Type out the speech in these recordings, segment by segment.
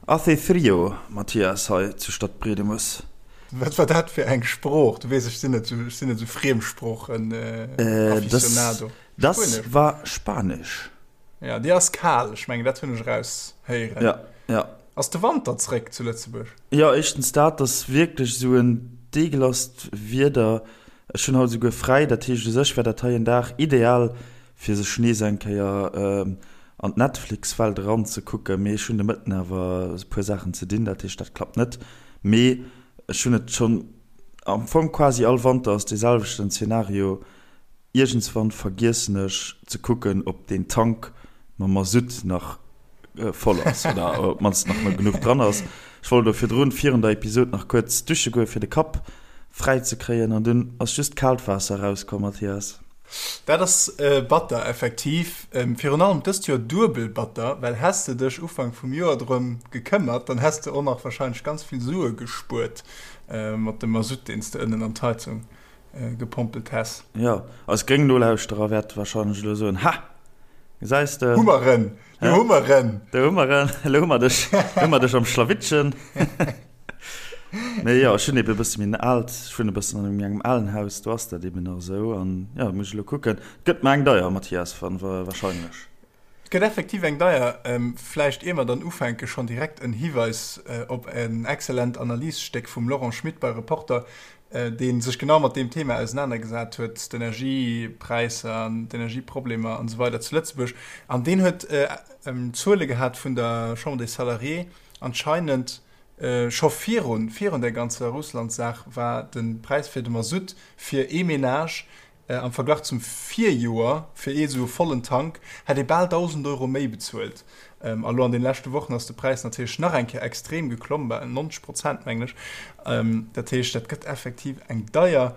Hace frio, Mathias, hei zu Stadtbriedemes. Wat war dat fir eng Sprooch? Du weess, ech sinn net esou, ech sinn net esou Friemsproochen-Aficionado. Dass Spuenesch? war Spanesch. Ja, déi ass kal, ech mengen, dat hunn ech eraushéieren. Ja, ja. Ass de Wanter zréck zu Lëtzebuerg? Jo, éischtens dat, ass wierklech esou en deegelasst Wieder. Ech hunn haut esouguer fräi, dat heescht u sech wär dat hei en Dag ideal, fir sech nees eng Kéier an d'Netflix-Welt eranzekucken. Mee ech hunn de Mëtten awer e puer Saachen ze dinn, dat heescht dat klappt net. Mee ech hunn et schonn am Fong quasi all Wanter ass dee selwechten Zeenario, iergendswann vergiessen ech ze kucken, ob deen Tank mam Masutt nach voll ass oder op d'mannst nach genuch dran ass. Ech wollt elo virdrun, virun der Episod nach kuerz dusche goen, fir de Kapp fräi ze kréien an dunn ass just kaalt Waasser erauskomm, Mathias. Dat ass batter, effektiv. Virun allem dëst Joer duebel batter, well häss de dech Ufank vum Joer drëm gekëmmert, dann häss de och nach warscheinlech ganz vill Sue gespuert mat dem Masutt, deen s de ënnen an d'Heizung gepompelt häss. Jo, eis gréng Nolauschterer wäerte warscheinlech elo soen, Ha! Gesäis de? Hu mer en! Do hu mer en! Do hu mer en! Elo hu mer dech, elo hu mer dech am Schlawittchen. Mee jo, ech hunn ebe e bësse méi en aalt, ech wunnen e bëssen an engem alen Haus, do ass dat eben nach esou. An jo, muss ech elo kucken. Et gëtt mer eng deier, Mathias, warscheinlech. Et gëtt effektiv eng deier. Vläicht ier mer dann ufänken, schonn direkt en Hiweis op en excellent Analysstéck vum Laurent Schmit bei Reporter, dee sech genau mat deem Thema ausenanergesat huet, d'Energiepräisser an d'Energieproblemer an esou weider zu Lëtzebuerg. An deen huet Zuele gehat vun der Chambre des Salariés, anscheinend scho virun, virun där ganzer Russland-Saach war de Präis fir de Masutt fir ee Menage Am Verglach zum Virjoer, fir ee sou e vollen Tank, hätt ee bal 1.000 Euro méi bezuelt. A lo an den leschte Wochen ass de Präis natierlech nach eng Kéier extrem geklomm, bal 90 Prozent mengen ech. Dat heescht, dat gëtt effektiv eng deier.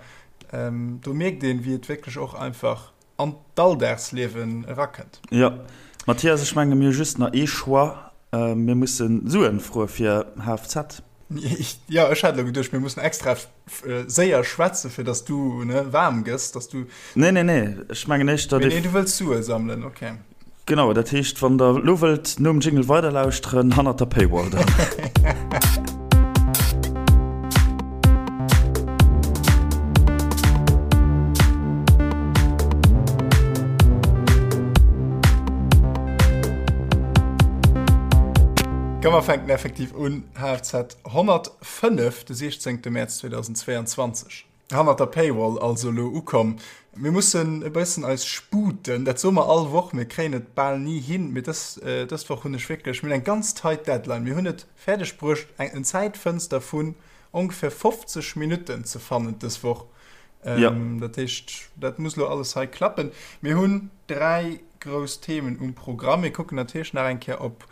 Do mierkt een, wéi et wierklech och einfach an d'Alldagsliewen erakënnt. Jo, Mathias, ech menge mir hu just nach ee Choix, Mir musse Suen froe fir HFZ. Jo, ech hat elo geduecht, mir mussen extra séier schwätzen, fir dass du ne waarm gëss, dass du. Nee, nee, nee, ech mengen éischter. Nee, nee, du wëlls Sue sammelen, okay. Genau, dat heescht, wann der elo wëllt nom Jingle weiderlauschteren, hannert der Paywall dann. Komm mer fänken effektiv un, HFZ 105, de 16 Mäerz 2022. Hannert der Paywall also elo ukomm. Mir mussen e bëssen eis sputen, dat soe mer all Woch, mir kréien et bal ni hin, mee dës, dës Woch hunn ech wierklech, mir hunn eng ganz tight Deadline, mir hunn et fäerdeg bruecht eng, en Zäitfënster vun ongeféier 50 Minutten ze fannen dës Woch. Ja. Dat heescht, dat muss elo alles hei klappen. Mir hunn 3 grouss Themen um Programm. Mir kucken natierlech nach eng Kéier op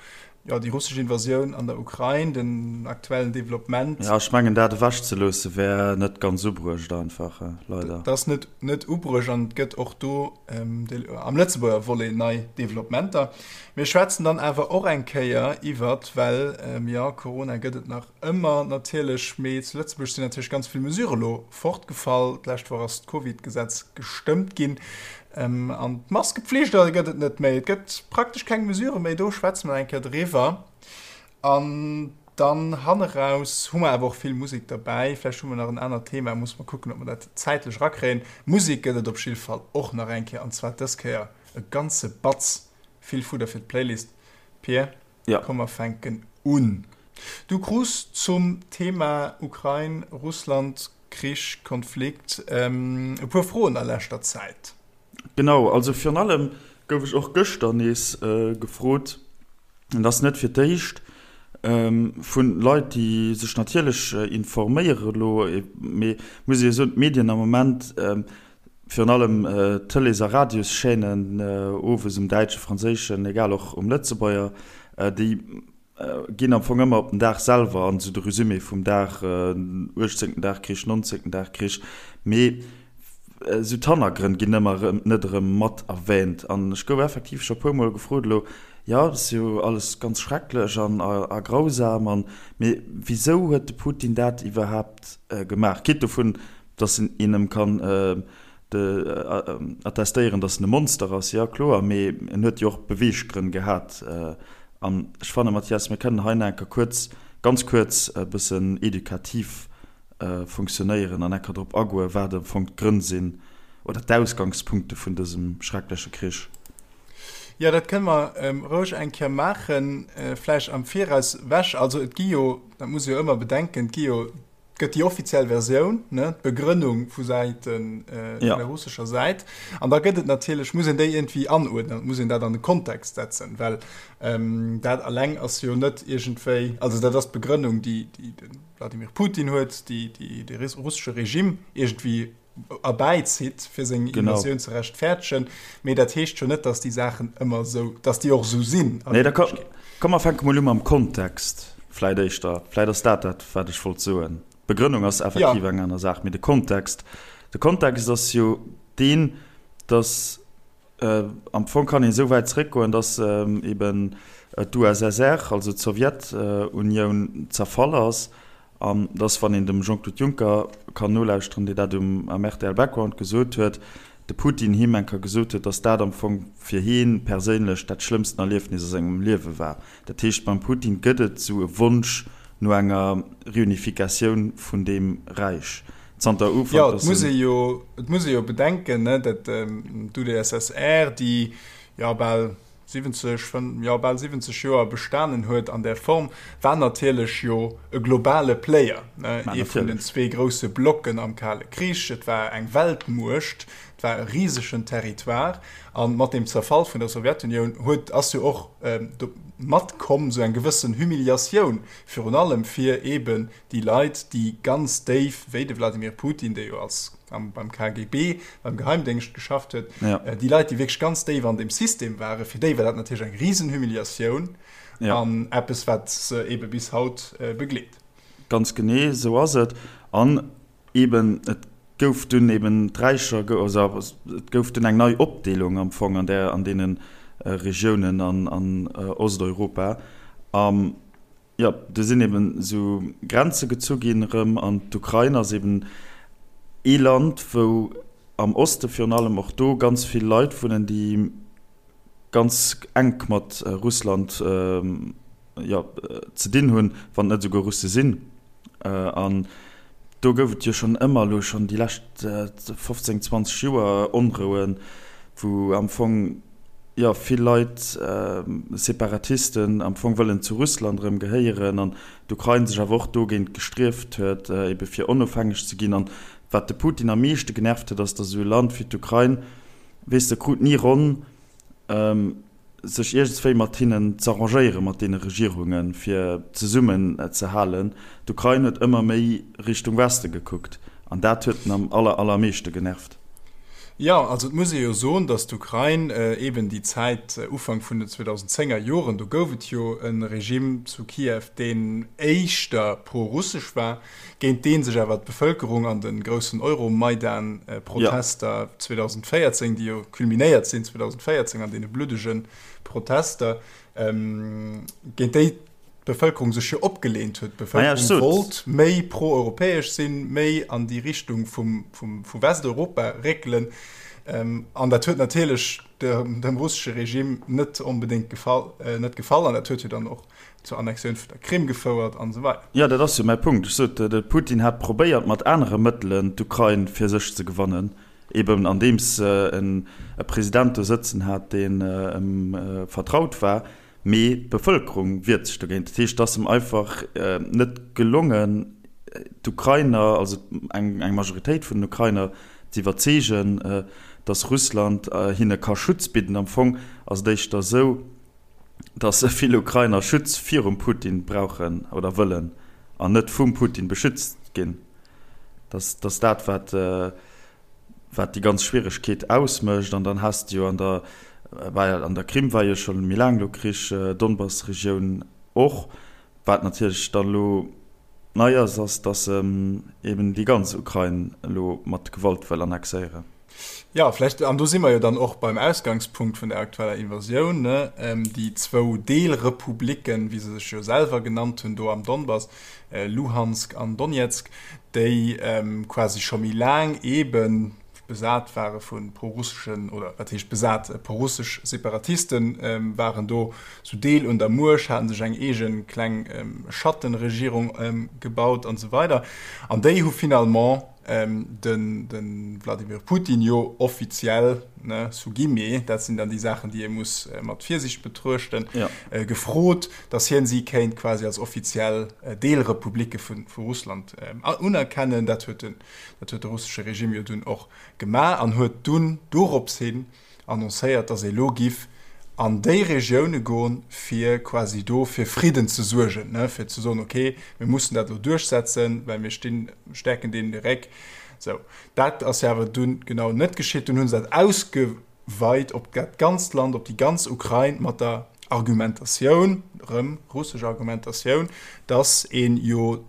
jo, déi russesch Invasioun an der Ukrain, den aktuellen Developpement. Ja, ech mengen, dat ewechzeloosse wär net ganz ubruecht einfach, leider. Dat ass net, net ubruecht an et gëtt och do am Lëtzebuerger Volet nei Developpementer. Mir schwätzen dann awer och eng Kéier iwwert, well jo, Corona gëtt et nach ëmmer natierlech, mee zu Lëtzebuerg sinn natierlech ganz vill Mesurë lo fortgefall. D'lescht Woch ass d'Covid-Gesetz gestëmmt ginn an d'Maskepflicht gëtt et net méi. Et gëtt praktesch keng Mesurë méi. Do schwätze mer eng Kéier driwwer. An dann hanneraus hu mer awer och vill Musek derbäi. Vläicht hu mer nach en anert Thema, musse mer kucken, ob mer dat zäitlech erakréien. Musek gëtt et op jidde Fall och nach eng Kéier, an zwar dës Kéier e ganze Batz. Vill Fudder fir d'Playlist. Pir, komm mer fänken un. Du krus zum Thema Ukrain, Russland, Krich, Konflikt e puer Froen a leschter Zäit. Genau, also virun allem gouf ech och gëschter nees gefrot, an dat ass net fir d'éischt, vu Leit, déi sech natierlech informéiere elo, mee muss ee jo soen, d'Medien am Moment, virun allem d'Tëlees a Radioschaînen, owes um däitschen, franséischen, egal och um Lëtzebuerger, déi ginn am Fong ëmmer op den Dag selwer an, esou de Resumé vum Dag, uechtzéngten Dag Krich, nonzéngten Dag Krich, mee esou d'Hannergrënn ginn ëmmer erëm net erëm mat erwähnt. An ech gouf effektiv scho puer Mol gefrot elo, jo, dat ass jo alles ganz schrecklech an a grausam an, mee wisou huet de Putin dat iwwerhaapt gemaach? Quitte dovun, datt een em kann attestéieren, datt en e Monster ass, jo kloer, mee en huet jo och Beweeggrënn gehat. An ech fannen, Mathias, mir kënnen hei nach eng Kéier kuerz, ganz kuerz e bëssen edukativ funktionéieren an eng Kéier drop agoen, wat am Fong d'Grënn sinn oder d'Ausgangspunkte vun dësem schreckleche Krich. Jo, dat kënne mer roueg eng Kéier maachen, vläicht am Viraus wech. Also et gi jo, dat muss ee jo ëmmer bedenken, et gi jo, et gëtt déi offiziell Versioun, ne, d'Begrënnung vu Säite vun der russescher Säit, an da gëtt et natierlech, muss een déi iergendwéi anuerdnen, et muss een dat an de Kontext setzen, well dat alleng ass jo net iergendwéi, also dat ass d'Begrënnung, déi de Wladimir Putin huet, déi de russesche Regime iergendwéi erbäizitt, fir seng Invasioun ze rechtfäerdegen. Mee dat heescht jo net, datt déi Saachen ëmmer esou, datt déi och esou sinn. Nee, da komm mer fänke mol u mam Kontext vläit éischter. Vläit ass dat dat, wat ech wollt soen. D'Begrënnung ass effektiv eng aner Saach, mee de Kontext, de Kontext ass jo deen, datt Am Fong kann een esou wäit zeréckgoen, datt eben d'USSR, also d'Sowjetunioun, zerfall ass an datt, wann een dem Jean-Claude Juncker kann nolauschteren, dee dat um am rtl Background gesot huet, de Putin him eng Kéier gesot huet, datt dat am Fong fir hie perséinlech dat schlëmmsten Erliefnis a sengem Liewe war. Dat heescht, beim Putin gëtt et esou e Wonsch no enger Reunificatioun vun deem Räich. Zanter Ufank, Jo, et muss ee jo, et muss ee jo bedenken, ne, dat d'UdSSR, déi jo bal 70, jo bal 70 Joer bestanen huet an där Form, war natierlech jo e globale Player, ne, ee vun den zwee grousse Blocken am Kale Krich. Et war eng Weltmuecht, et war e risegen Territoire. A mat dem Zerfall vun der Sowjetunioun huet, ass jo och do matkomm esou eng gewëssen Humiliatioun, virun allem fir eeben déi Leit, déi ganz déif, wéi de Wladimir Putin, dee jo als am, beim KGB, beim Geheimdéngscht geschafft huet, ja. Äh, déi Leit, déi wierklech ganz déif an dem System waren, fir déi war dat natierlech eng Risenhumiliatioun ja. an eppes, wat se ebe bis haut äh, begleet. Ganz genee, esou ass et. An eben, et gouf dunn eben d'Räicher, also et gouf dunn eng nei Opdeelung am Fong an där, an deene Regiounen an, an Osteuropa. Am Jo, do sinn eben esou Grenze gezu ginn erëm an d'Ukrain ass eben ee Land, wou am Oste virun allem och do ganz vill Leit wunnen, déi ganz enk mat Russland, jo, ze dinn hunn, wann et net esouguer Russe sinn. An do gouf et jo schonn ëmmer elo schonn déi lescht 15, 20 Joer Onrouen, wou am Fong, jo, vill Leit, Separatisten am Fong wëllen zu Russland erëm gehéieren an d'Ukrain sech awer och dogéint gestrieft huet, ebe fir onofhängeg ze ginn. An wat de Putin am meeschte genervt huet, ass, datt esou e Land wéi d'Ukrain, weess de, krut ni ronn, sech iergendswéi mat hinnen z'arrangéieren, mat deene Regierungen, fir zesummen ze halen. D'Ukrain huet ëmmer méi Richtung Weste gekuckt an dat huet en am aller, allermeeschte genervt. Jo, also et muss ee jo soen, datt d'Ukrain eeben déi Zäit, Ufank vun den 2010er Joren, do gouf et jo e Regime zu Kiew, deen éischter pro-russesch war, géint dee sech awer d'Bevëlkerung an de groussen Euromaidan-Protester 2014, déi jo culminéiert sinn 2014 an deene bluddege Protester, géint déi d'Bevëlkerung sech jo opgeleent huet. D'Bevëlkerung wollt méi pro-europäesch sinn, méi an déi Richtung vum, vum, vu Westeuropa réckelen. An dat huet natierlech dem russesche Regime net onbedéngt gefall, net gefall. An dat huet jo dann och zur Annexioun vun der Krim gefouert an esou weider. Jo, dat ass jo mäi Punkt. Ech sot, de Putin hat probéiert mat anere Mëttelen d'Ukrain fir sech ze gewannen, eben andeems en e President do sëtzen hat, deen em vertraut war. Mee d'Bevëlkerung wiert sech dogéint. Dat heescht, et ass em einfach net gelongen, d'Ukrainer, also eng Majoritéit vun den Ukrainer ze iwwerzeegen, datt Russland hinne ka Schutz bidden. Am Fong ass et éischter esou, datt vill Ukrainer Schutz virum Putin brauchen oder wëllen an net vum Putin beschützt ginn. Dat ass dat, wat. wat déi ganz Schwieregkeet ausmécht. An dann has de jo an der, war an der Krim war jo scho méi laang elo Krich, Donbass-Regioun och. Wat natierlech dann elo nei ass, ass, datt en eben déi ganz Ukrain elo mat Gewalt wëll annexéieren. Jo, vläicht, an do si mer jo dann och beim Ausgangspunkt vun der aktueller Invasioun, ne, déi zwou Deelrepublicken, wéi se sech jo selwer genannt hunn, do am Donbass, Luhansk an Donezk, déi quasi scho méi laang eeben. besat ware vu prorusseschen, oder wat heescht besat, prorussesch Separatiste waren do zu Deel un der Muecht, haten sech eng eege kleng Schattenregierung gebaut an esou weider. An déi hu finalement de Wladimir Putin jo offiziell, ne, sous guillemets, dat sinn dann déi Saachen, déi ee muss mat Virsiicht betruechten, gefrot, datt hien si kéint quasi als offiziell Deelrepublicke vu Russland unerkennen. Dat huet den, dat huet de russesche Regime jo dunn och gemaach an huet dunn dorops hin annoncéiert, datt ee lo giff an déi Regioune goen, fir quasi do fir Fridden ze suergen, ne, fir ze soen, okay, mir mussen dat elo duerchsetzen, well mir stinn, stäerken deenen de Réck. Sou, dat ass jo awer dunn genau net geschitt. Dunn hu se dat ausgeweit op dat ganzt Land, op déi ganz Ukrain, mat der Argumentatioun, erëm russesch Argumentatioun, datt een jo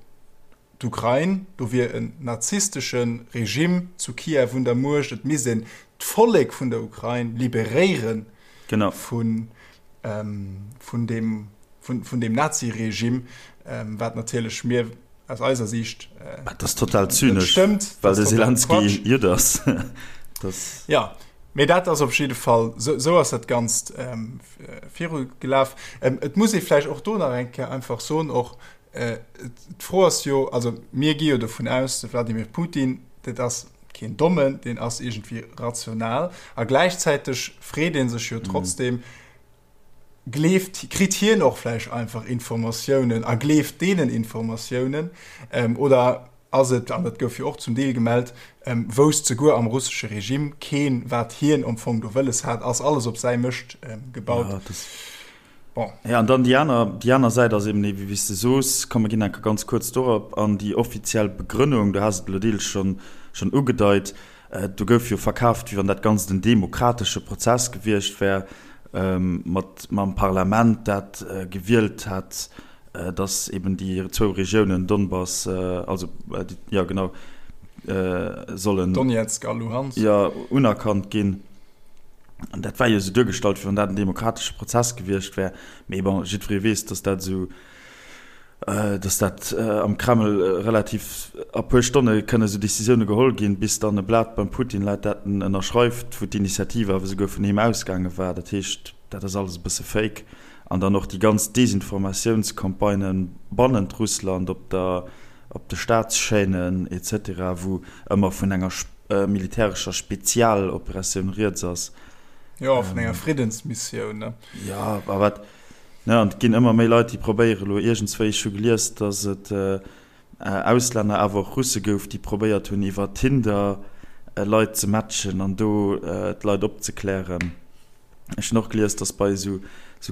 D'Ukrain, do wier en nazistesche Regime zu Kiew un der Muecht, et misst een d'Vollek vun der Ukrain liberéiere vun deem Nazi-Regime, wat natierlech mir aus eiser Siicht net stëmmt. Dat ass total zynesch, well de Selenskyj Judd ass. Jo, mee dat ass op jidde Fall, esou ass dat Ganzt virugelaf. Et muss ee vläicht och do nach eng Kéier einfach soen, och D'Fro ass jo, also mir gi jo dovun aus, de Wladimir Putin, dat ass keen Dommen, deen ass iergendwéi rational. A gläichzäiteg freet ee sech jo trotzdem, gleeft, kritt hien och vläicht einfach Informatiounen a gleeft deenen Informatiounen oder ass et, an dat gouf jo och zum Deel gemellt, wousst souguer am russesche Regime keen, wat hien am Fong do wëlles hat, ass alles op säi Mëscht gebaut. Bon. Ja, an dann déi aner, déi aner Säit ass eben déi, wéi s de soos, komm, mir ginn enke ganz kuerz dorop an, déi offiziell Begrënnung, du has et elo deels schonn, schonn ugedeit, do gouf jo verkaaft, wéi wann dat Ganzt en demokratesche Prozess gewiescht wär, mat, mam Parlament, dat gewielt hätt, dass eben déi zwou Regiounen Donbass, also, jo genau, sollen. Donezk a Luhansk. Jo, unerkannt ginn. An dat war jo esou duergestallt, wéi wann dat en demokratesche Prozess gewiescht wär. Mee bon, jiddweree weess, datt dat esou, datt dat am Kreml relativ a puer Stonne kënne esou Decisioune geholl ginn, bis dann e Blat beim Putin läit, dat en ënnerschreift, wou d'Initiativ awer esouguer vun him ausgaange war. Dat heescht, dat ass alles e bësse Fake. An dann och déi ganz Desinformatiounscampagnen bannent Russland op der, op de Staatschaînen et cetera, wou ëmmer vun enger militärescher Spezialoperatioun rieds ass. Jo, vun enger Friddensmissioun, ne? Jo, a wat, ne, an et ginn ëmmer méi Leit, déi probéiere elo iergendswéi, ech hu gelies, datt et Auslänner, awer och Russe gouf, déi probéiert hunn, iwwer Tinder Leit ze matchen an do d'Leit opzeklären. Ech hunn och gelies, dass bei esou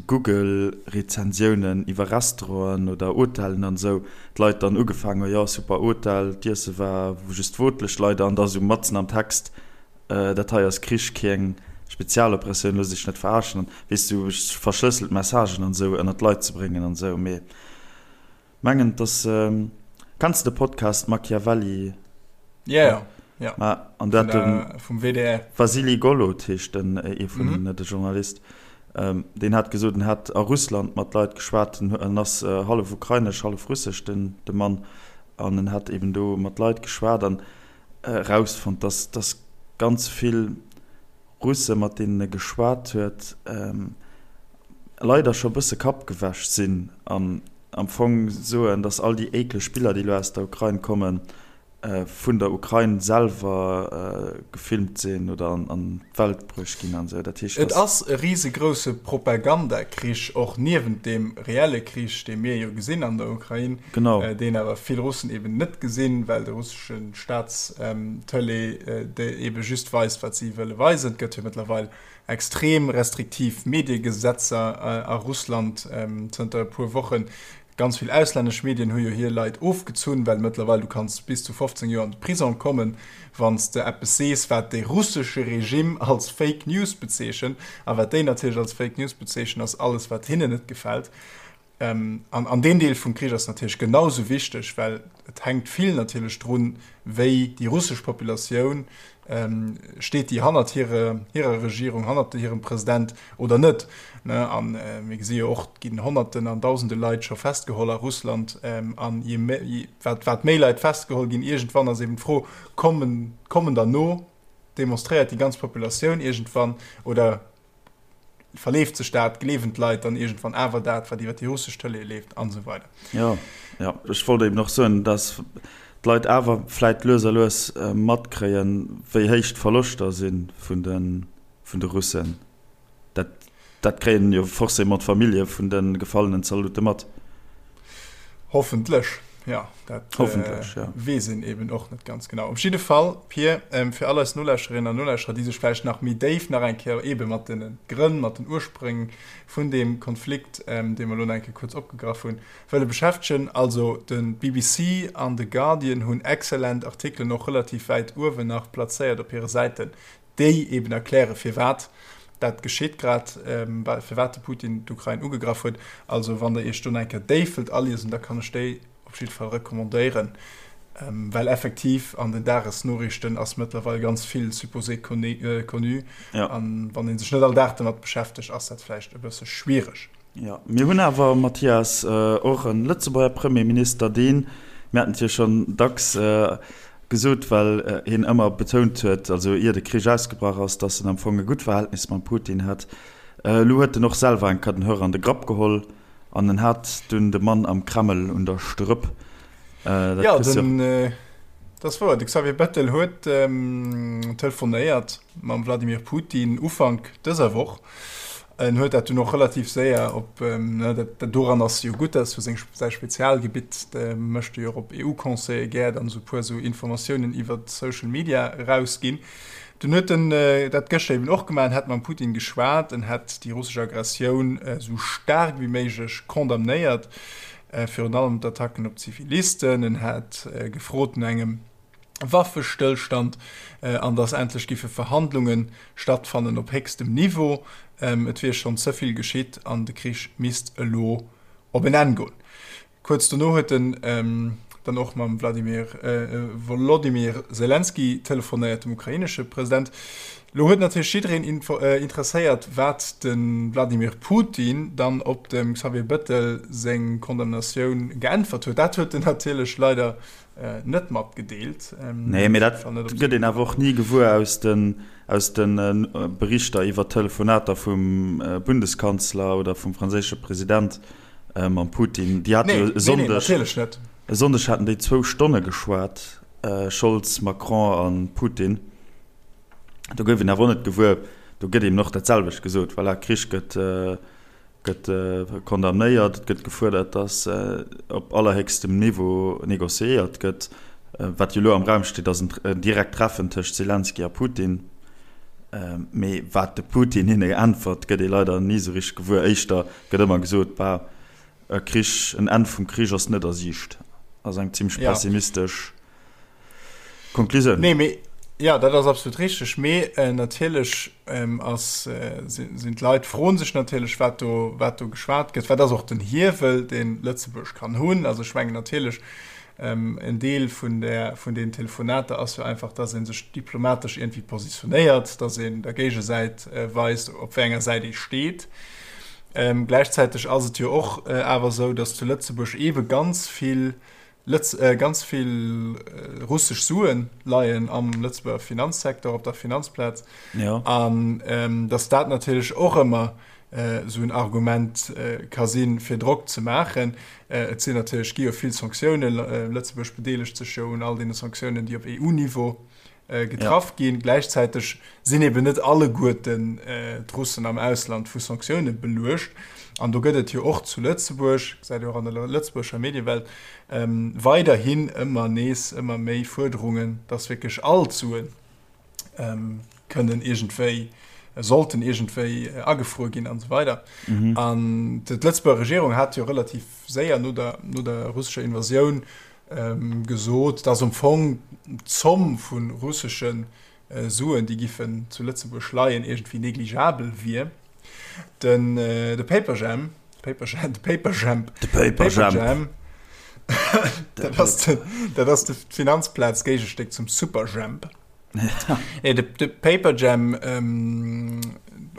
Google-Rezensiounen iwwer Restauranten oder Hotellen an esou d'Leit dann ugefaangen hunn, jo super Hotel, d'Iesse war just wotlech leider, an da esou matzen am Text, dat hei ass Krich, keng Spezialoperatioun, loosst iech net verarschen an weess du, verschlësselt Messagen an esou ënnert d'Leit ze bréngen an esou. Mee Mengen dass kenns de de Podcast Machiavelli? Ja ja ja. Ma an dat den vum WDR. Vasily Golod heescht den ee vun mm -hmm. de Journalist. Ähm, deen hat gesot, en hat a Russland mat Leit geschwat, en ass äh, hallef ukrainesch, hallef russesch den de Mann an en hat eben do mat Leit geschwat an äh, rausfonnt, dass dass ganz vill Russe mat deenen e geschwat huet, leider scho bësse kappgewäsch sinn an am Fong soen, datt all déi ékleg Biller, déi elo aus der Ukrain kommen, vun der Ukrain selwer gefilmt sinn oder an d'Welt bruecht ginn an esou. Dat heescht, Et ass e risegrousse Propagandakrich, och niewent deem reelle Krich, dee mir jo gesinn an der Ukrain, deen awer vill Russen eben net gesinn, well de russesche Staatstëlee ebe just weist, wat si wëlle weisen. Et gëtt jo mëttlerweil extrem restriktiv Mediegesetzer a Russland zënter e puer Wochen. Ganz vill auslännesch Medien hu jo hir Leit ofgezunn, well mëttlerweil du kanns bis zu 15 Joer an de Prisong kommen, wann s de eppes sees, wat de russesche Regime als Fake News bezeechent. A wat déi natierlech als Fake News bezeechnen, ass alles, wat hinnen net gefält. An an deen Deel vum Krich ass natierlech genau sou wichteg, well et hänkt vill natierlech drun, wéi déi russesch Populatioun, steet déi hannert hire hirer Regierung, hannert hirem President oder net. A mir gesi jo och, et ginn Honnerten an Dausende Leit scho festgeholl a Russland. An je méi, wat wat méi Leit festgeholl ginn, iergendwann ass eben d'Fro, kommen kommen der no? Demonstréiert déi ganz Populatioun iergendwann oder verleeft sech dat, gleewen d'Leit dann iergendwann awer dat, wat iwwer déi russesch Tëlee leeft an esou weider. Jo, jo. Ech wollt eben och soen, dass d'Leit awer vläit lues a lues matkréien, wéi héich d'Verloschter si vun de Russen. Dat, dat kréien jo forcément d'Famillje vun de gefallenen Zaldote mat. Hoffentlech, jo. Dat Hoffentlech, ja. weess een eben och net ganz genau. Op jidde Fall, Pir, fir all eis Nolauschterinnen an Nolauschterer, déi sech vläicht nach méi déif nach eng Kéier eebe mat de Grënn, mat den Urspréng vun deem Konflikt, dee mer elo nach eng Kéier kuerz opgegraff hunn, wëlle beschäftegen. Also de BBC an de Guardian hunn exzellent Artikelen och relativ wäit uewen nach plazéiert op hire Säiten, déi eben erkläre firwat dat geschitt grad, firwat de Putin d'Ukrain ugegraff huet. Also wann der Iech do nach eng Kéier déif wëllt aliesen, da kann ech déi op jidde Fall recommandéieren, well effektiv an den Dagesnoriichten ass mëttlerweil ganz vill supposé connu an wann ee sech net all Dag domat beschäftegt, ass dat vläicht e bësse schwiereg. Jo, mir hunn awer, Mathias, och e Lëtzebuerger Premierminister, deen, mir haten et jo schonn dacks gesot, well hien ëmmer betount huet, also ier de Krich ausgebrach ass, datt en am Fong e gutt Verhältnis mam Putin hätt. Elo huet en och selwer eng Kéier den Hörer an de Grapp geholl an en hat dunn de Mann am Kreml un der Strëpp. Dat jo, den, dat ass wouer. De Xavier Bettel huet telefonéiert mam Wladimir Putin Ufank dëser Woch. En huet dat dunn och relativ séier op, dat doran ass jo gutt, dat ass jo seng, säi Spezialgebitt, de mécht e jo och op EU-Conseile gär dann esou e puer esou Informatiounen iwwer Social Media erausginn. Dunn huet en dat gëschter eben och gemaach, en hätt mam Putin geschwat, en hätt déi russesch Aggressioun esou staark wéi méiglech condamnéiert, virun allem d'Attacken op Zivilisten, en hätt gefrot no engem Waffestëllstand an datt endlech giffe Verhandlunge stattfannen op héchstem Niveau. Et wier schonn ze vill geschitt an de Krich misst elo op en Enn goen. Kuerz dono huet en dann och mam Wladimir Wolodymyr Selenskyj telefonéiert, dem ukrainesche President. Lo huet natierlech jiddereen interesséiert, wat de Wladimir Putin dann op dem Xavier Bettel seng Condamnatioun geäntwert huet. Dat huet en natierlech leider net matgedeelt. Nee, mee dat gëtt een awer och ni gewuer aus den, aus de Berichter iwwer Telefonater vum Bundeskanzler oder vum franséische President mam Putin. Déi hate jo e Sonndeg, e Sonndeg haten déi zwou Stonne geschwat, Scholz, Macron a Putin. Do gouf een awer och net gewuer, do gëtt eben och dat selwecht gesot, voilà, Krich gëtt, gëtt condamnéiert, et gëtt gefuerdert, datt op allerhéchstem Niveau négociéiert gëtt. Wat jo elo am Raum steet, ass en direkt Treffen tëscht Selenskyj a Putin. Mee wat de Putin hinne äntwert, gëtt ee leider ni esou richteg gewuer. Éischter gëtt ëmmer gesot, bah, e Krich, en Enn vum Krich ass net a Siicht. Ass eng zimmlech pessimistesch. Konklusioun. Nee, mee, ja, dat ass absolut richteg. Mee natierlech ass, sinn d'Leit froen sech natierlech, wat do, wat do geschwat gëtt. Wat ass och den Hiewel, deen Lëtzebuerg kann hunn? Also ech mengen natierlech, en Deel vun där, vun deenen Telefonater ass jo einfach, dass ee sech diplomatesch iergendwéi positionéiert, dass een der Géigesäit weist, op wéi enger Säit ee steet. Gläichzäiteg ass et jo och awer esou, dass zu Lëtzebuerg eebe ganz vill Lëtz ganz vill russesch Suen leien am Lëtzebuerger Finanzsecteur, op der Finanzplaz. Ja. An ähm, dass dat natierlech och ëmmer äh, sou en Argument äh, ka sinn, fir Drock ze maachen. Äh, et sinn natierlech gi jo vill Sanktiounen. Lëtzebuerg bedeelegt sech jo un all deene Sanktiounen, déi op EU-Niveau getraff ginn. Gläichzäiteg sinn eben net alleguerten d'Russen am Ausland vu Sanktioune beluecht. An do gëtt et jo och zu Lëtzebuerg, gesäit ee och an der lëtzebuergescher Mediewelt, weiderhin ëmmer nees ëmmer méi Fuerderungen, datt wierklech all d'Sue kënnen iergendwéi, sollten iergendwéi agefruer ginn an esou weider. An d'Lëtzebuerger Regierung hat jo relativ séier no der, no der russescher Invasioun gesot, dass am Fong d'Zomm vu russesche Suen, déi giffen zu Lëtzebuerg leien, iergendwéi negligeabel wier. Den de Paperjam, Paperjam, de Paperjamp, de Paperjamp, dat ass de, dat ass de Finanzplaz-Géigestéck zum Superjhemp. Nee, de, de Paperjam, ähm,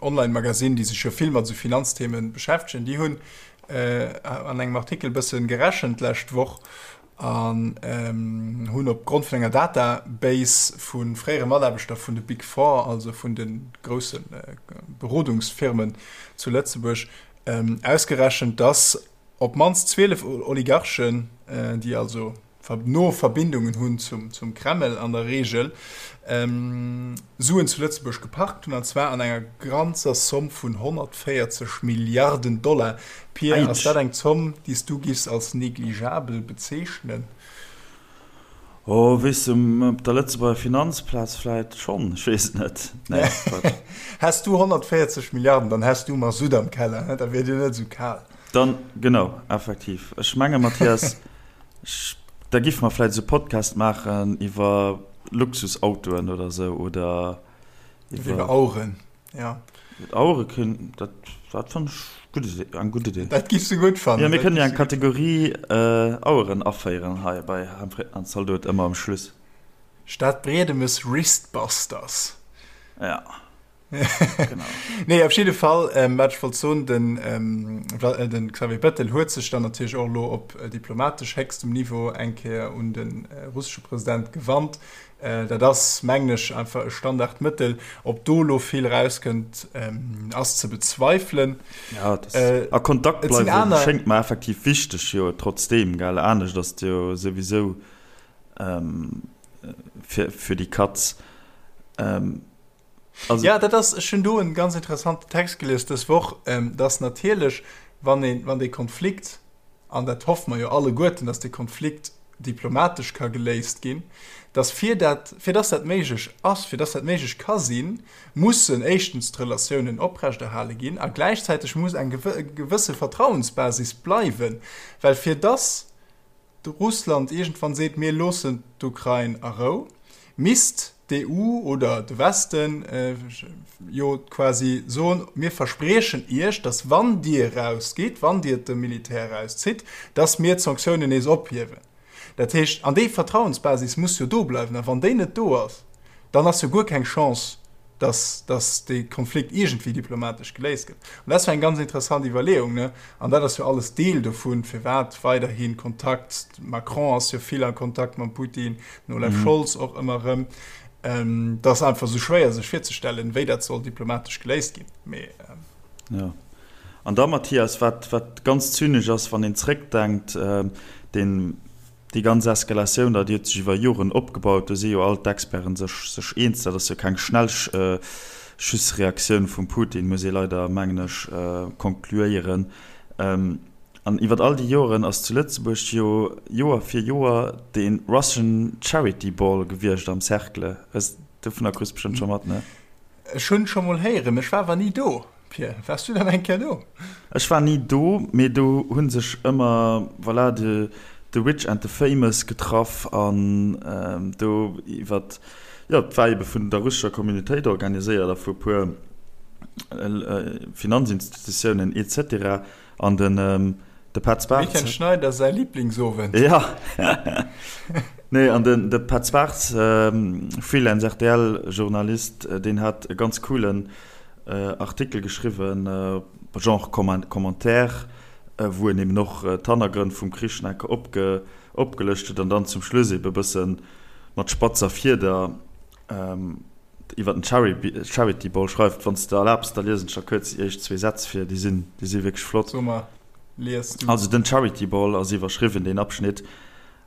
Online-Magazin, déi sech jo vill mat esou Finanzthemen beschäftegen, déi hunn an engem Artikel bëssen gerechent d'lescht Woch. An hunn op Grond vun enger Database vu fréiere Mataarbechter vun de Big Four, also vun de grousse Berodungsfirmen zu Lëtzebuerg, ausgerechent, datt op d'mannst 12 Oligarchen, déi also no Verbindungen hunn zum Kreml an der Reegel, Suen zu Lëtzebuerg geparkt hunn, an zwar an enger ganzer Zomm vun 140 Milliarden Dollar. Pir, ass dat eng Zomm, déi s du giffs als negligeabel bezeechnen? Oh, weess de, op der Lëtzebuerger Finanzplaz vläit schonn, ech weess et net. Nee, Quatsch. Häss du 140 Milliarden, dann häss du Masutt am Keller, he? Da wier dir net esou kal. Dann, genau, effektiv. Ech menge, Mathias, da giffe mer vläit esou Podcast maachen iwwer Luxusautoen oder esou, oder iwwer. Iwwer Aueren. Ja. Auere kënnen, dat, dat fannen ech gutt Idee, eng gutt Idee. Dat giffs du gutt fannen. Jo, mir kënnen jo eng Kategorie Aueren aféieren hei bei Hemfritten an Zaldot, ëmmer am Schluss. Stadbriedemes Wristbusters. Ja. Genau. Nee, op jidde Fall, wat ech wollt soen, den, den Xavier Bettel huet sech dann natierlech och elo op diplomatesch héchstem Niveau eng Kéier un de russesche President gewannt. Dat ass, mengen ech, einfach e Standardmëttel. Ob do elo vill erauskënnt, ass ze bezweifelen. Ja, dat a Kontakt bleiwe schéngt mer effektiv wichteg, jo trotzdeem, gell? Anescht ass et jo souwisou fir, fir déi Katz. Also. Ja, dat ass, ech hunn do en ganz interessanten Text gelies dës Woch, dass natierlech, wann een, wann dee Konflikt, an dat hoffe mer jo alleguerten, dass dee Konflikt diplomatesch ka geléist ginn, dass fir dat, fir dass dat méiglech ass, fir dass dat méiglech ka sinn, mussen éischtens d'Relatiounen oprechterhale ginn a gläichzäiteg muss eng gewësse Vertrauensbasis bleiwen, well fir dass Russland iergendwann seet, mir loossen d'Ukrain a Rou, misst d'EU oder de Westen jo quasi soen, mir verspriechen Iech, datt wann Dir erausgitt, wann Dir de Militär erauszitt, datt mir d'Sanktiounen nees ophiewen. Dat heescht, an déi Vertrauensbasis muss jo do bleiwen. A wann déi net do ass, dann ass jo guer keng Chance, dass, dass dee Konflikt iergendwéi diplomatesch geléist gëtt. An dat ass jo eng ganz interessant Iwwerleeung, ne? An dat ass jo alles Deel dovun, firwat weiderhi Kontakt, Macron ass jo vill a Kontakt mam Putin, den Olaf Scholz och ëmmer erëm. Dat ass einfach esou schwéier sech virzestellen, wéi dat soll diplomatesch geléist ginn. Mee. Jo. An da, Mathias, wat, wat ganz zynesch ass, wann een zréckdenkt, deen, Déi ganz Eskalatioun da, déi huet sech iwwer Joren opgebaut. Do si jo all d'Experten sech sech eens. Dat ass jo keng Schnellschussreaktioun vum Putin, muss ee leider, mengen ech, konkluéieren. An iwwer all déi Joren ass zu Lëtzebuerg jo Joer fir Joer dee Russian Charity Ball gewiescht am Cercle. Dovunner kriss bestëmmt scho mat, ne? Ech hunn scho mol héieren, ech war awer ni do. Pir, waars du dann eng Kéier do? Ech war ni do, mee do hu sech ëmmer, voilà, de the rich and the famous getraff an do iwwert, jo, et war ebe vun der russescher Communautéit organiséiert a vu e puer Finanzinstitutiounen et cetera An den de Petz Bartz. Dem Etienne Schneider säi Liblingsowend. Ja. Nee, an den de Petz Bartz, Freelance RTL-Journalist, deen hat e ganz coolen Artikel geschriwwen, Genre Commentaire, wou en eben och d'Hannergrënn vum Krich nach eng Kéier opgelëscht huet an dann zum Schluss eben e bësse mat spatzer Fieder iwwer den Charity Ball schreift. Wann s de erlaabs, da liesen ech der kuerz déi éischt zwee Sätz vir, déi sinn, déi si wierklech flott. So mar, lies du. Also den Charity Ball ass iwwerschriwwen, deen Abschnitt.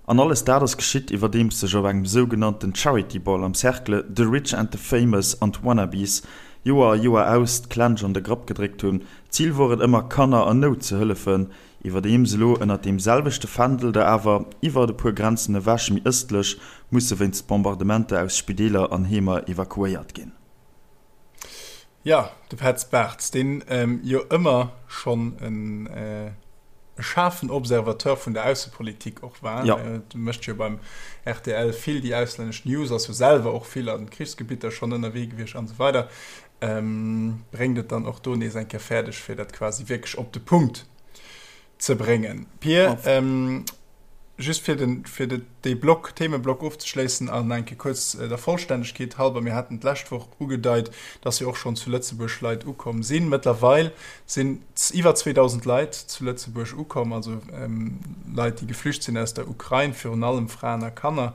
An alles dat ass geschitt, iwwerdeems sech op engem sougenannten Charity Ball am Cercle the rich and the famous an d'Wannabes Joer a Joer aus d'Klensch an de Grapp gedréckt hunn. D'Zil wor et ëmmer, Kanner an Nout ze hëllefen, Iwwerdeems elo ënnert deem selwechte Fändel der awer iwwert e puer Grenzen ewech méi ëstlech musse wéinst Bombardementer aus Spideeler an Heemer evakuéiert ginn. Jo, de Petz Bartz, deen jo ëmmer schonn e schaarfen Observateur vun der Aussepolitik och war, mécht jo beim rtl vill déi auslännesch News, ass jo selwer och vill a Krichsgebitter schonn ënnerwee gewiescht an esou weider. Bréngt et dann och do nees eng Kéier fäerdeg, fir dat quasi wierklech op de Punkt ze bréngen. Pir, ähm. Just fir den, fir de, dee Block, Themeblock ofzeschléissen an eng Kéier kuerz der Vollständegkeet halber, Mir haten d'lescht Woch ugedeit, dass jo och schonn zu Lëtzebuerg Leit ukomm sinn. Mëttlerweil sinn iwwer 2.000 Leit zu Lëtzebuerg ukomm, also Leit, déi geflücht sinn aus der Ukrain, virun allem Fraen a Kanner,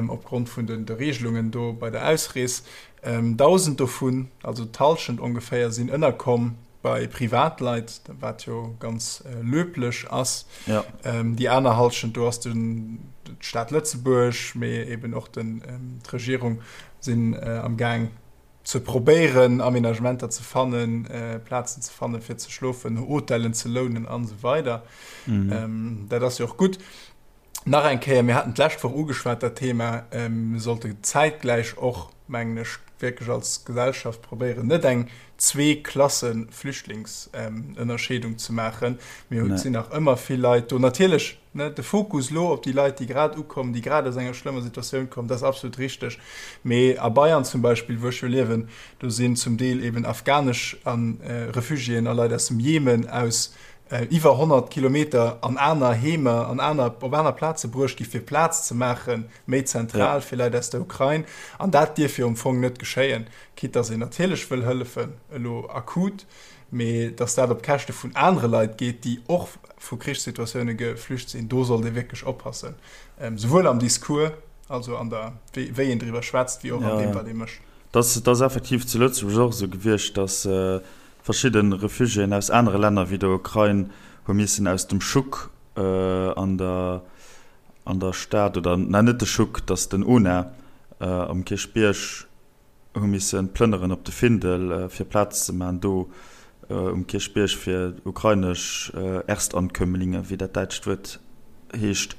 opgrond vun de Regelungen do bei der Ausrees. 1.000 dovun, also d'Hallschent ongeféier, sinn ënnerkomm bei Privatleit, wat jo ganz löblech ass. Ja. Déi aner Hallschent, do ass den, d'Stad Lëtzebuerg, mee eben och den, d'Regierung sinn am Gaang ze probéieren, Aménagementer ze fannen, Plazen ze fannen, fir ze schlofen, Hotellen ze lounen an esou weider. Mhm. Dat ass jo och gutt. Nach eng Kéier, mir haten d'lescht Woch ugeschwat dat Thema, mir sollte zäitgläich och, mengen ech, wierklech als Gesellschaft probéieren, net eng Zwee-Klasse-Flüchtlingsënnerscheedung ze maachen. Mir sinn nach ëmmer vill Leit do. Natierlech, ne, de Fokus elo op déi Leit, déi grad ukommen, déi grad aus enger schlëmmer Situatioun kommen, dat ass absolut richteg. Mee a Bayern zum Beispill, wou ech jo liewen, do sinn zum Deel eben afghanesch Refugiéen a Leit aus dem Jemen aus iwwer 100 Kilometer an aner Heemer, an aner, op aner Plaze bruecht gi fir Plaz ze maachen, méi zentral fir Leit aus der Ukrain. An dat dierf jo am Fong net geschéien, quitte dass een natierlech wëll hëllefen, elo akut, mee dass dat op Käschte vun anere Leit geet, déi och vu Krichssituatioune geflücht sinn, do sollt ee wierklech oppassen, souwuel am Discours, also an der, wéi een driwwer schwätzt, wéi och an deem, wat ee mécht. Dat ass effektiv zu Lëtzebuerg och esou gewiescht, dass Verschidde Refugiéen aus anere Länner wéi der Ukrain hu missen aus dem Schuck an der an der Stad, oder na net de Schuck, dass den UNA am Kierchbierg, hu misse plënneren op de Findel fir Plaz ze man do um Kierchbierg fir ukrainesch Erstankömmlinge, wéi dat däitscht Wuert heescht.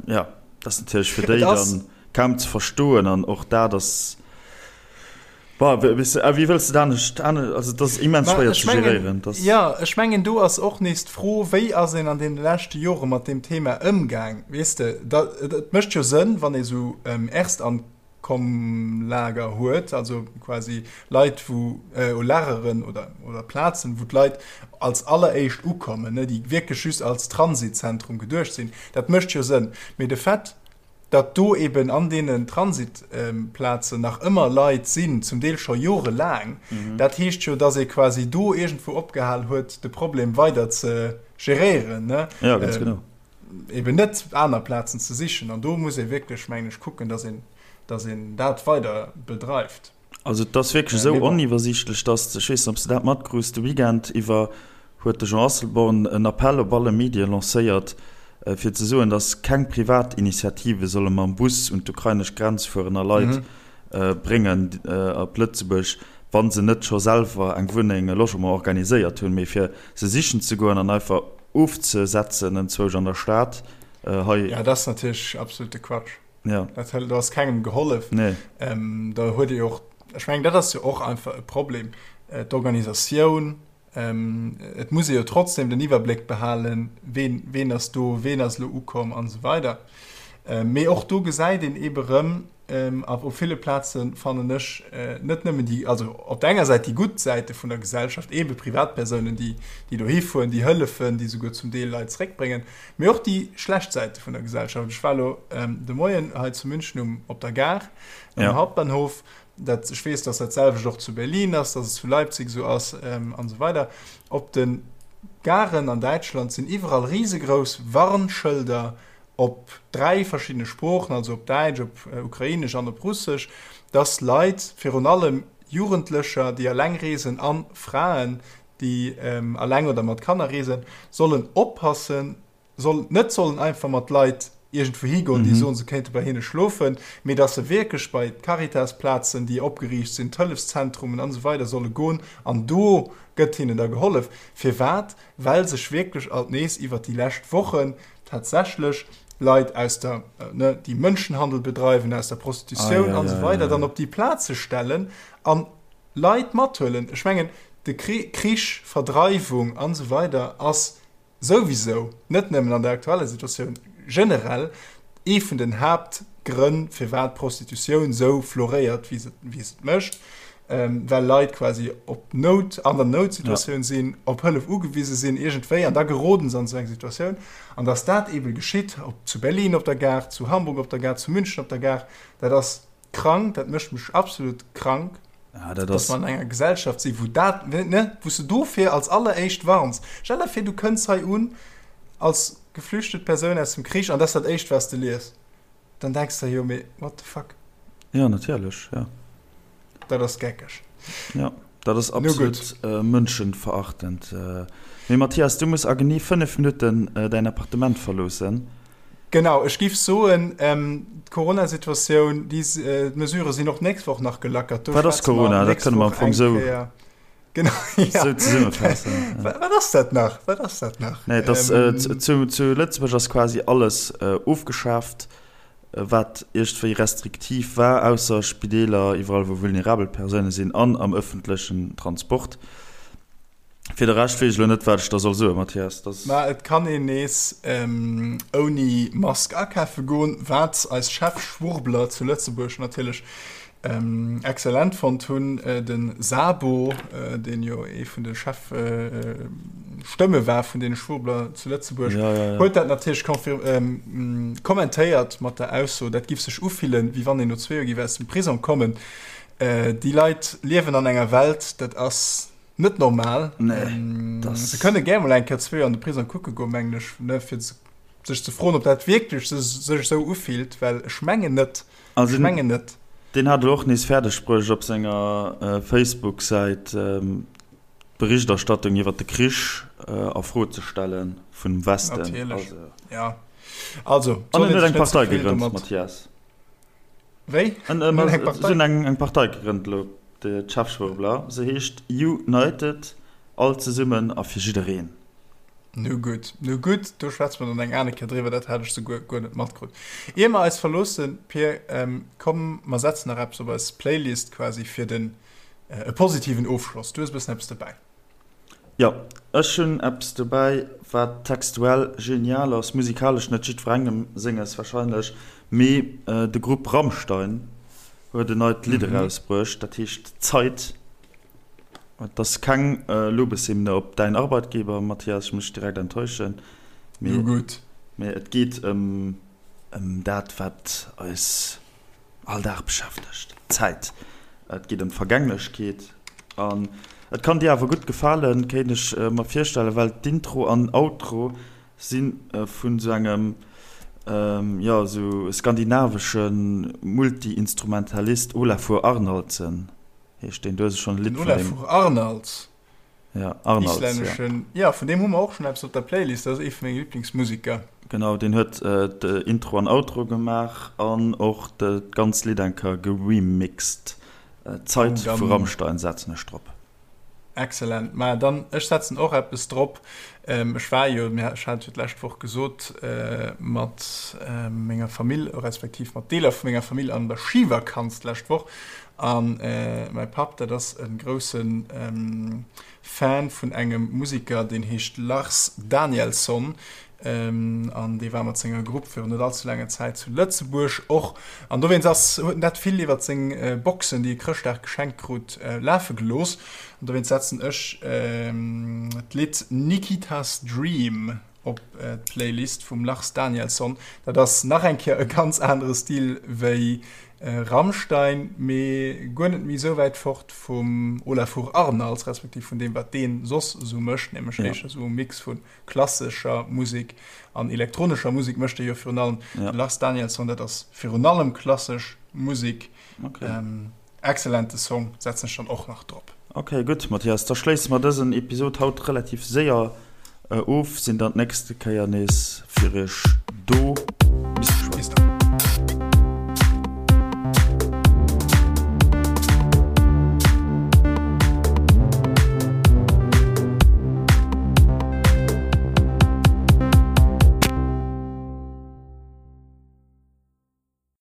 Jo, dat ass natierlech fir déi dann kaum ze verstoen an och dat ass. Bah, wéi wëlls de dat anescht, also dat ass immens schwéier ze geréieren. Jo, ech mengen do ass och nees d'Fro, wéi ass een an deene leschte Jore mat deem Thema ëmgaang, weess de. Et mécht jo Sënn, wann ee sou Erstankommlager huet, also quasi Leit wou, Lageren oder Plazen, wou d'Leit als alleréischt ukommen, déi wierklech just als Transitzentrum geduecht sinn. Dat mécht jo Sënn. Mee de Fait, datt do eben an deenen Transitplazen nach ëmmer Leit sinn, zum Deel scho jorelaang, dat heescht jo, datt ee quasi do iergendwou opgehal huet, de Problem weider ze geréieren, ne? Ja, ganz genau. Eben net aner Plazen ze sichen. An do muss ee wierklech, mengen ech, kucken, datt een, datt een dat weider bedreift. Also et ass wierklech esou oniwwersiichtlech, datt, ech weess net, ob s de dat matkrus, de Weekend iwwer huet de Jean Asselborn en Appell op alle Medie lancéiert, fir ze soen, datt keng Privatinitiative solle mam Bus un d'ukrainesch Grenz fueren a Leit bréngen op Lëtzebuerg, wa se net scho selwer eng Wunneng, e Logement organiséiert hunn. Mee fir se sichen ze goen an einfach ofzesetzen enzwousch an der Stad hei. Jo, dat ass natierlech absolute Quatsch. Ja. Dat hël, do ass kengem gehollef. Nee. Ähm, da huet ee och, ech mengen, dat ass jo och einfach e Problem, äh, d'Organisatioun. Ähm, et muss ee jo trotzdem den Iwwerbléck behalen, ween, ween ass do, ween ass elo ukomm an esou weider. Ähm, mee och do gesäit een eebe rëm, ähm, a op ville Plaze fannen ech, äh, net nëmmen déi, also op der enger Säit déi gutt Säite vun der Gesellschaft, eebe Privatpersounen, déi, déi dohi fueren, déi hëllefen, déi souguer zum Deel Leit zréckbréngen, Mee och déi schlecht Säite vun der Gesellschaft. Ech war elo de Moien hei zu München um, op der Gare, am ja. Hauptbahnhof. Dat, ech weess, dass dat selwecht och zu Berlin ass, dass et zu Leipzig esou ass ähm, an esou weider. Op de Garen an Däitschland sinn iwwerall risegrouss Warnschëlder op dräi verschiddene Sproochen, also op Däitsch, op äh, Ukrainesch an op Russesch, dass Leit, virun allem Jugendlecher, déi alleng reesen an Fraen, déi alleng oder mat Kanner reesen, sollen oppassen, soll, net sollen einfach mat Leit iergendwou higoen, déi soen, se kéinte bei hinne schlofen, mee dass se wierklech bei d'Caritas-Plazen, déi opgeriicht sinn, d'Hëllefszentrumen an esou weider solle goen an do gëtt hinnen da gehollef. Firwat? Well sech wierklech alt nees iwwert déi lescht Wochen tatsächlech Leit aus der, ne, déi Mënschenhandel bedreiwen, aus der Prostitutioun an esou weider dann op déi Plaze stellen an Leit mathuelen. Ech mengen, de Krich, Verdreiwung an esou weider ass souwisou, net nëmmen an der aktueller Situatioun, generell ee vun den Haaptgrënn, firwat d'Prostitutioun esou floréiert, wéi se et mécht. Well Leit quasi op Nout, an der Noutsituatioun sinn, op Hëllef ugewise sinn iergendwéi, an da geroden se an esou eng Situatioun. An datt dat eebe geschitt, ob zu Berlin op der Gare, zu Hamburg op der Gare, zu München op der Gare, dat ass krank, dat mécht mech absolut krank, datt mer an enger Gesellschaft sinn, wou dat, ne, wou s de dofir als alleréischt warns. Stell der vir, du kënns hei un als geflüchtet Persoun aus dem Krich an dat ass dat Éischt, wat s de lies. Dann denks de jo, mee what the fuck? Jo, natierlech, jo. Dat ass geckeg. Jo, dat ass absolut mënschenverachtend. Mee Mathias, du muss a genee 5 Minutten däin Appartement verloossen. Genau, ech giff soen, d'Corona-Situatioun, déi Mesurë sinn och d'nächst Woch nach gelackert. Wat ass Corona? Dat kënne mer am Fong sou. Genau, ja. Sou zesummefaassen. Wat ass dat nach? Wat ass dat nach? Nee, das, äh, zu, zu Lëtzebuerg ass quasi alles äh, ofgeschaaft, wat iergendwéi restriktiv war, ausser Spideeler, iwwerall wou vulnerabel Persoune sinn an am ëffentlechen Transport. Fir de Rescht weess ech elo net, wat ech da soll soen, Mathias. Das. Mä et kann een nees ähm, ouni Mask akafe goen, wat eis Chefschwurbler zu Lëtzebuerg natierlech Excellent fonnt hunn. De Sabo, deen jo ee vun de Chefstëmme war vun deene Schwurbler zu Lëtzebuerg, huet dat natierlech kommentéiert mat der Ausso, dat giff sech ufillen, wéi wann een no zwee Joer giff aus dem Prisong kommen. Déi Leit liewen an enger Welt, dat ass net normal. Se kënne gär mol eng Kéier zwee Joer an de Prisong kucke goen, mengen ech, fir sech ze froen, ob dat wierklech sech esou ufillt, well ech mengen net. Also ech mengen net. Deen hat elo och nees fäerdeg bruecht op senger Facebook-Säit d'Berichterstattung iwwer de Krich a Fro ze stelle vum Westen. Natierlech, jo. Also, an en huet eng Partei gegrënnt, Mathias. Wéi? En huet eng Partei gegrënnt elo, de Chefschwurbler. Se heescht United, all zesummen a fir jiddereen. Nu gutt, nu gutt, do schwätze mer dann eng aner Kéier driwwer, dat hat ech souguer guer net matkrut. Ier mer eis verloossen, Pir, komm mer setzen nach eppes op eis Playlist quasi fir den e positiven Ofschloss. Du hues e bëssen eppes dobäi. Jo, ech hunn eppes dobäi, wat textuell genial ass, musikalesch net jiddwerengem senges warscheinlech, mee de Grupp Rammstein huet en neit Lidd erausbruecht, dat heescht Zeit. Et ass keng Lobeshymne op däin Arbeitgeber, Mathias, ech muss dech direkt enttäuschen, mee, mee et geet ëm ëm dat, wat eis all Dag beschäftegt, d'Zäit. Et geet ëm d'Vergänglechkeet an et kann dir awer gutt gefalen, kéint ech mer virstellen, well d'Intro an Outro si vun esou engem, jo, esou skandinavesche Multi-Instrumentalist, Olafur Arnaldsen. Heescht deen, du hues schonn e Lidd vun deem. Olafur Arnalds. Ja, Arnalds, ja. Islänneschen, ja, vun deem hu mer och schonn eppes op der Playlist, dat ass ee vu menge Liblingsmuseker. Genau, deen huet d'Intro an Outro gemaach an och d'ganz Lidd eng Kéier geremixed. Zeit vu Rammstein setzen ech drop. Excellent. Maja, dann ech setzen och eppes drop. Ech war jo, ech hat et jo d'lescht Woch gesot, mat menger Famill, respektiv mat Deeler vu menger Famill an der Schivakanz d'lescht Woch. A mäi Papp, dat ass e grousse Fan vun engem Musiker, deen heescht Lars Danielsson. An dee war mat senger Grupp virun net allze laanger Zäit zu Lëtzebuerg och. An dowéinst ass, huet en dat vill iwwer seng Boxen, déi e Chrëschtdag geschenkt krut, lafe gelooss. An dowéinst setzen ech d'Lidd Nikita's Dream op d'Playlist vum Lars Danielsson. Dat ass nach eng Kéier e ganz anere Stil wéi Rammstein, mee guer net méi esou wäit fort vum Olafur Arnalds, respektiv vun deem, wat dee soss esou mécht, nämlech éischter esou e Mix vu Klassescher Musek an elektronescher Musek mécht e jo virun allem. Ja. De Lars Danielsson, dat ass virun allem klassesch Musek. Okay. Ähm, exzellente Song, setzen ech dann och nach drop. Okay, gutt, Mathias, da schléisse mer dësen Episod haut relativ séier of, sinn dann d'nächste Kéier nees fir iech do.